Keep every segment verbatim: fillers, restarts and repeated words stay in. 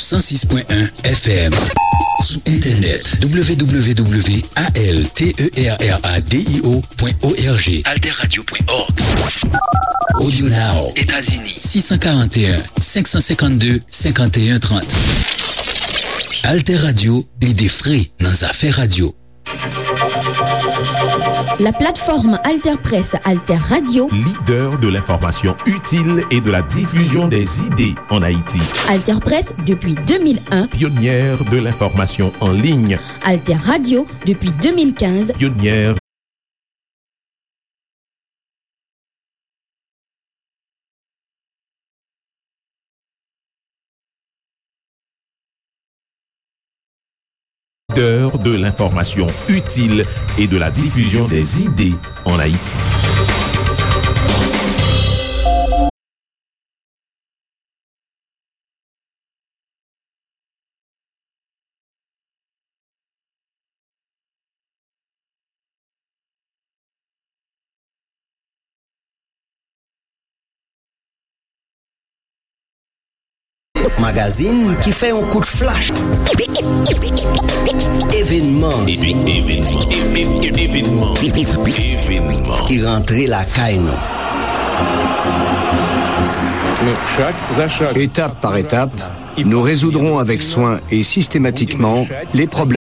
san sis pwen en F M. Sou entènèt, w w w a l t e r r a d i o pwen o r g. Alter radio pwen org. Audio Now, Etazini, sis san karant e en, senk san senkannde, senkannde trant. Alter Radio, lide fre nan zafè radyo. La plateforme Alter Presse, Alter Radio. Leader de l'information utile et de la diffusion des idées en Haïti. Alter Presse depuis deux mille un. Pionnière de l'information en ligne. Alter Radio depuis deux mille quinze. Pionnière Leader de l'information utile et de la diffusion des idées en Haïti. Magazin ki fè yon kout flach. Evenman. Evenman. Evenman. Evenman. Ki rantre lakay nou. Etap pa etap, nous résoudrons avec soin et systématiquement les problèmes.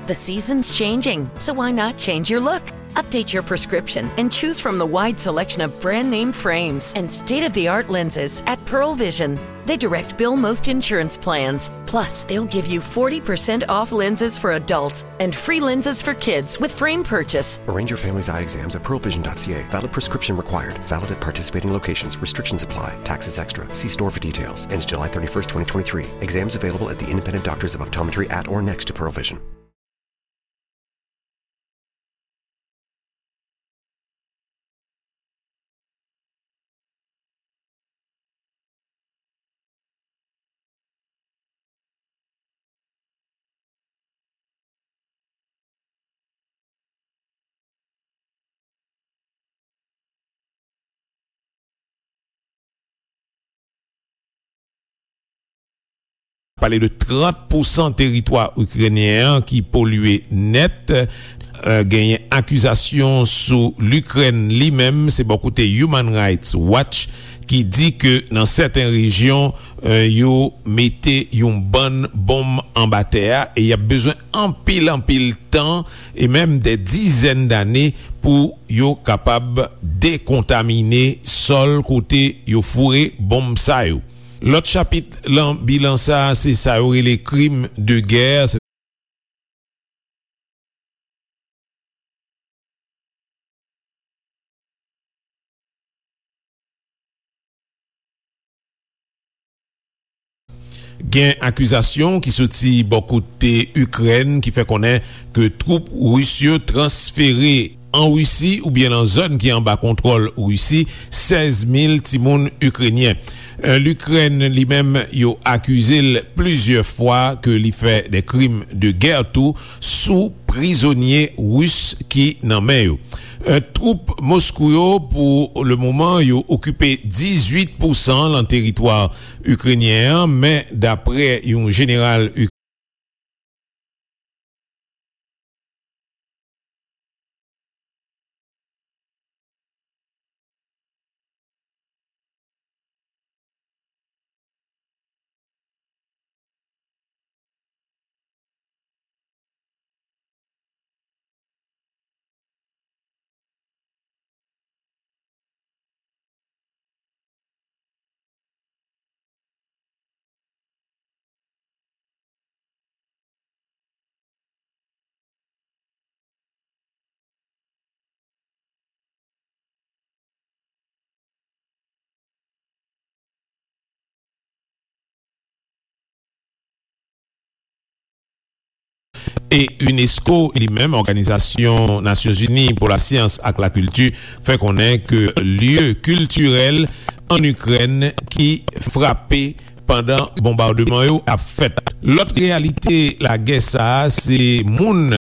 The season's changing, so why not change your look? Update your prescription and choose from the wide selection of brand name frames and state of the art lenses at Pearle Vision. They direct bill most insurance plans. Plus, they'll give you forty percent off lenses for adults and free lenses for kids with frame purchase. Arrange your family's eye exams at pearlevision.ca. Valid prescription required. Valid at participating locations. Restrictions apply. Taxes extra. See store for details. Ends July thirty-first, twenty twenty-three. Exams available at the independent doctors of optometry at or next to Pearle Vision. Pale de trant pousan teritwa ikrenyen an ki polye nèt. Eh, genyen akizasyon sou Likrèn li menm, se bò kote Human Rights Watch ki di ke nan sèten rejyon, eh, yo mete yon bann bonm anba tè a e y ap bezwen anpil, anpil tan e menm dè dizèn dane pou yo kapab dekontamine sòl kote yo foure bonm sa yo. Lòt chapit lan bilan sa a, se sa yo rele krim de gè. Gen akizasyon ki soti bò kote Ikrèn ki fè konnen ke twoup ris yo transfere an Risi oubyen nan zòn ki anba kontwòl Risi sèz mil timoun ikrenyen. Eh, Likrèn li menm, yo akize l plizyè fwa ke li fè de krim de gè tou sou prizonye ris ki nan men yo. Eh, twoup Moskou yo, pou le moman, yo okipe dizuit pousan lan teritwa ikrenyen an, men daprè yon jeneral E unesco li menm, Òganizasyon Nasyonzini pou Lasyans ak Lakilti, fè konnen ke lye kiltirèl ann Ikrèn ki frape pandan bonbadman yo ap fèt. Lòt reyalite lagè sa a, se moun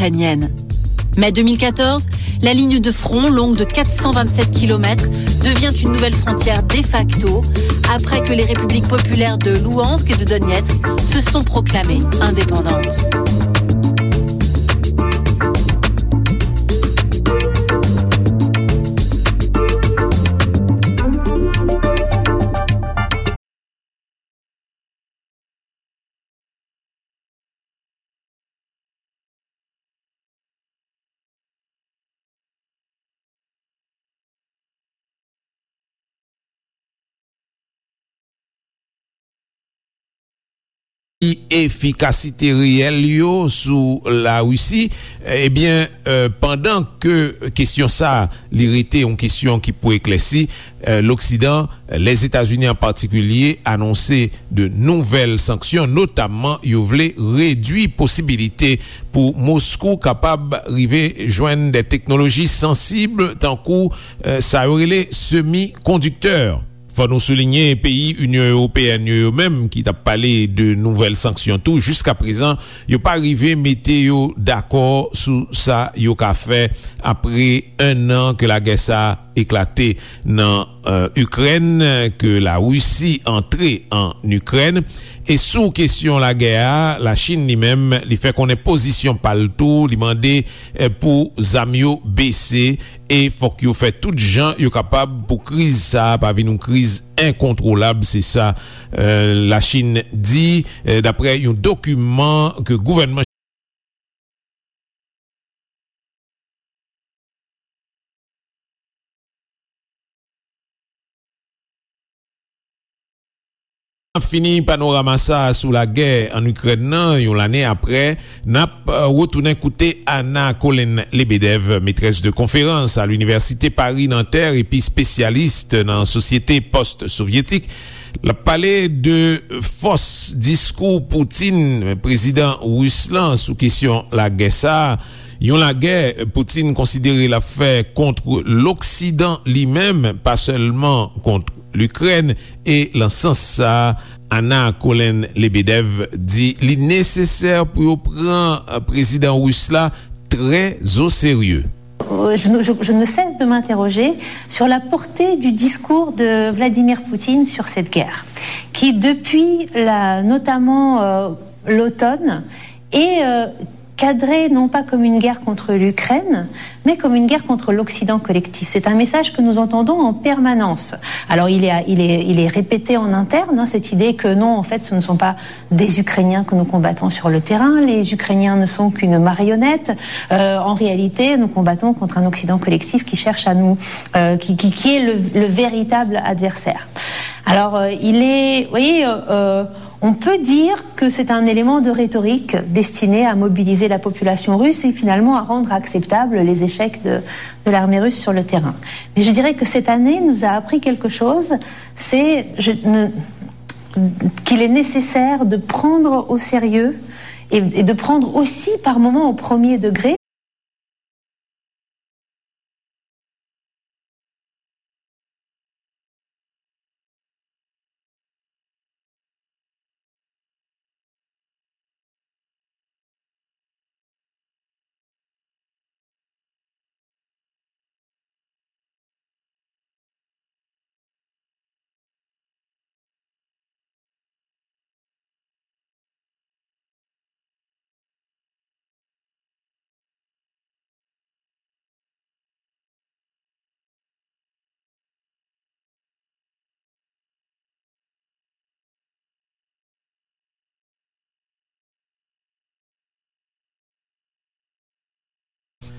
ukrainienne. Mai deux mille quatorze, la ligne de front, longue de quatre cent vingt-sept kilomètres, devient une nouvelle frontière de facto après que les républiques populaires de Louhansk et de Donetsk se sont proclamées indépendantes. Efikasite reyèl yo sou Larisi, ebyen, eh, pandan ke kesyon sa a, li rete yon kesyon ki pou eklèsi, eh, Loksidan, Lèzetazini an patikilye, anonse de nouvèl sanksyon, notamman yo vle redwi posibilite pou Moskou kapab rive jwenn de teknoloji sansib, tankou, eh, sa yo rele semikondiktè. Fò nou soulinye, peyi Inyon Ewopeyèn yo, yo menm ki t ap pale de nouvèl sanksyon tou, jiskaprezan, yo pa rive mete yo dakò sou sa yo ka fè apre en an ke lagè sa a eklate nan, eh, Ikrèn, ke Larisi antre an Ikrèn. E sou kesyon lagè a, Lachin li menm, li fè konnen pozisyon pa l tou, li mande, eh, pou zam yo bese, e fòk yo fè tout jan yo kapab pou kriz sa a pa vin yon kriz enkontwolab, se sa, eh, Lachin di, eh, daprè yon dokiman ke gouvènman N ap fini panorama sa a sou lagè an Ikrèn nan, yon lane apre, n ap, eh, retounen koute Anna Colin Lebedev, maîtresse de conférence à l'Université Paris-Nanterre epi espesyalis nan sosyete pòst-sovyetik. L ap pale de fòs diskou Putin, prezidan ris lan, sou kesyon lagè sa a. Yon lagè Putin konsidere l ap fè kont Loksidan li menm, pa sèlman kont Likrèn, e lan sans sa a, Anna Colin Lebedev di li nesesè pou yo pran, eh, prezidan ris la trè o serye. Euh, je, je, je ne cesse de m'interroger sur la portée du discours de Vladimir Poutine sur cette guerre, qui, depuis la, notamment, euh, l'automne, est, euh, cadrée non pas comme une guerre contre l'Ukraine, mais comme une guerre contre l'Occident collectif. C'est un message que nous entendons en permanence. Alors, il est, il est, il est répété en interne, hein, cette idée que non, en fait, ce ne sont pas des Ukrainiens que nous combattons sur le terrain. Les Ukrainiens ne sont qu'une marionnette. Euh, en réalité, nous combattons contre un Occident collectif qui cherche à nous, euh, qui, qui, qui est le, le véritable adversaire. Alors, euh, il est, vous voyez, euh, euh, on peut dire que c'est un élément de rhétorique destiné à mobiliser la population russe et finalement à rendre acceptables les échecs de, de l'armée russe sur le terrain. Mais je dirais que cette année nous a appris quelque chose, c'est, je ne, qu'il est nécessaire de prendre au sérieux et, et de prendre aussi par moments au premier degré.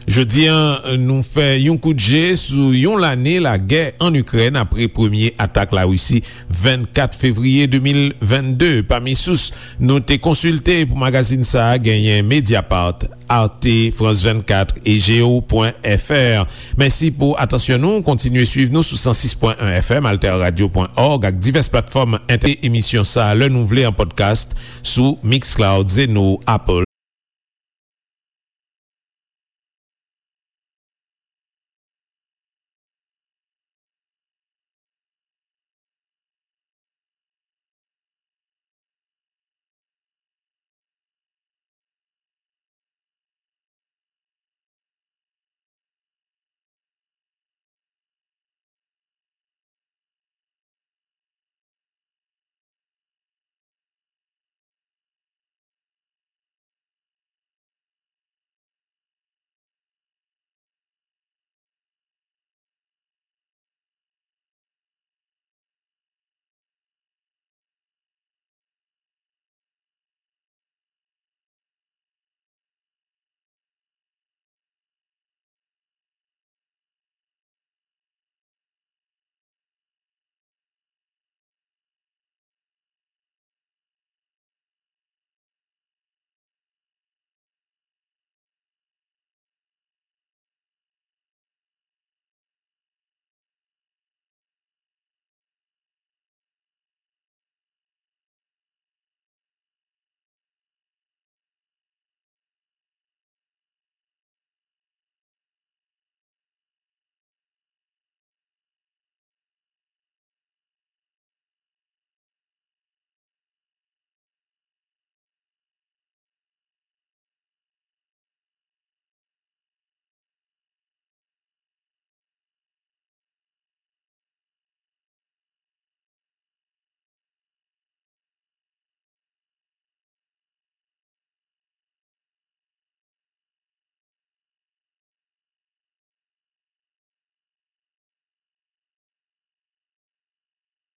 Jodi a, nou fè yon kout je sou yon lane lagè ann Ikrèn apre premye atak Larisi vennkat fevriye de mil vennde. Pami sous nou te konsilte pou magazin sa a, genyen Mediapart, Arte, France vennkat e Geo pwen F R. Mèsi pou atansyon nou. Kontinye swiv nou sou san sis pwen en F M, alterradio pwen org ak divès platfòm entènèt. Emisyon sa a, lè nou vle, an podcast sou Mixcloud, Zeno, Apple